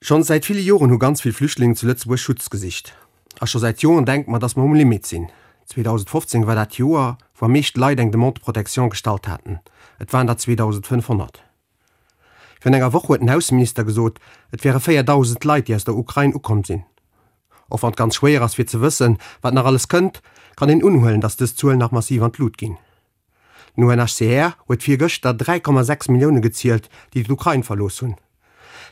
Schonns säit ville Joren hu ganz vill Flüchtlingen zu Lëtzebuerg Schutz gesicht. A scho säit Joren denke mer, dass mer um Limit sinn. 2015 war dat Joer, wou am meescht Leit eng Demande de protection gestallt haten. Et waren der 2.500. Virun enger Woch huet den Ausseminister gesot, et wäre 4.000 Leit, déi aus der Ukrain ukomm sinn. Och wann et ganz schwéier ass fir ze wëssen, wat nach alles kënnt, kann een unhuelen, dass dës Zuelen nach massiv an d'Lut ginn. Den UNHCR huet virgëschter 3,6 Millioune gezielt, déi d'Ukrain verlooss hunn.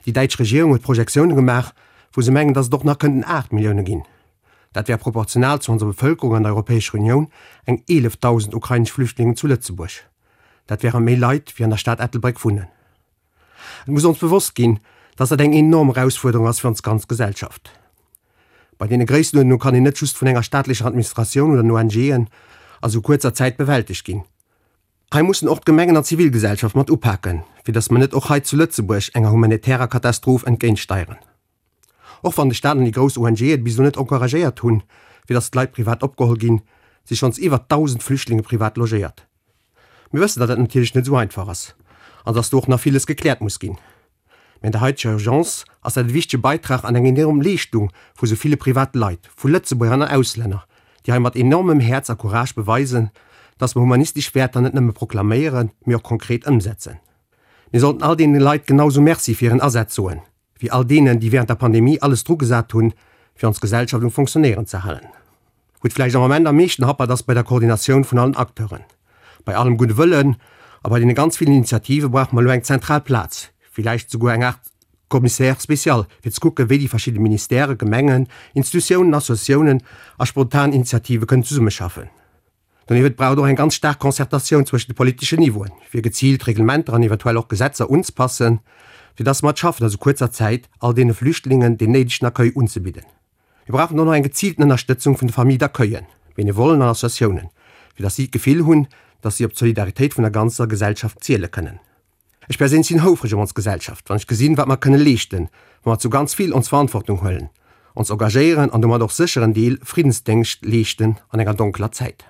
Déi däitsch Regierung huet Projektioune gemaach, wou se mengen, datt et och nach kënnten 8 Millioune ginn. Dat wär proportional zu onser Bevëlkerung an der Europäescher Unioun eng 11.000 ukrainesch Flüchtlingen zu Lëtzebuerg. Dat wäre méi Leit, wéi an der Stad Ettelbréck wunnen. Et muss ons bewosst ginn, datt dat eng enorm Erausfuerderung ass fir ons ganz Gesellschaft. Bei deene Gréissenuerdnung kann een net just vun enger staatlecher Administratioun oder den ONGen a sou kuerzer Zäit bewältegt ginn. Hei mussen och d'Gemengen an d'Zivilgesellschaft mat upaken, fir datt mer net och hei zu Lëtzebuerg enger humanitärer Katastroph entgéintsteieren. Och wann de Staat an déi grouss ONGe et bis elo net encouragéiert hunn, fir datt d'Leit privat opgeholl ginn, si schonns iwwer 1.000 Flüchtlinge privat logéiert. Mir wëssen, datt dat natierlech net esou einfach ass an datt do och nach villes gekläert muss ginn. Mä an der haiteger Urgence ass dat e wichtege Beitrag an eng enorm Leeschtung vu sou ville private Leit, vu Lëtzebuerger an Auslänner, déi hei mat enormem Häerz a Courage beweisen, datt mer humanistesch Wäerter net nëmme proklaméieren, mee och konkret ëmsetzen. Mir sollten all deene Leit genau sou Merci fir hiren Asaz soen, wéi all deenen, déi während der Pandemie alles drugesat hunn, fir ons Gesellschaft um Fonctionnéieren ze halen. Wou et vläicht am Ament am meeschten happert, ass bei der Koordinatioun vun allen Acteuren. Bei allem gudde Wëllen a bei deene ganz villen Initiative brauche mer elo eng zentral Plaz, villäicht souguer eng Aart Commissaire spécial, fir ze kucken, wéi déi verschidde Ministèren, Gemengen, Institutiounen, Associatiounen a spontan Initiative kënnen zesummeschaffen. Doniewent brauch et och eng ganz staark Concertatioun zwëschen de politeschen Niveauen, fir geziilt Reglementer an eventuell och Gesetzer unzpassen, fir dass mer et schaffen, a sou kuerzer Zäit all deene Flüchtlingen deen néidegen Accueil unzebidden. Mir brauchen och nach eng geziilten Ënnerstëtzung vun de Familles d'accueillen, Benevollen an Associatiounen, fir dass si d'Gefill hunn, dass si op d'Solidaritéit vun der ganzer Gesellschaft ziele kënnen. Ech perséinlech sinn houfreg op ons Gesellschaft, wann ech gesinn, wat mer kënne leeschten, wa mer zu ganz vill ons Verantwortung huelen, ons engagéieren an domat och sécher en Deel Friddensdéngscht leeschten an enger donkeler Zäit.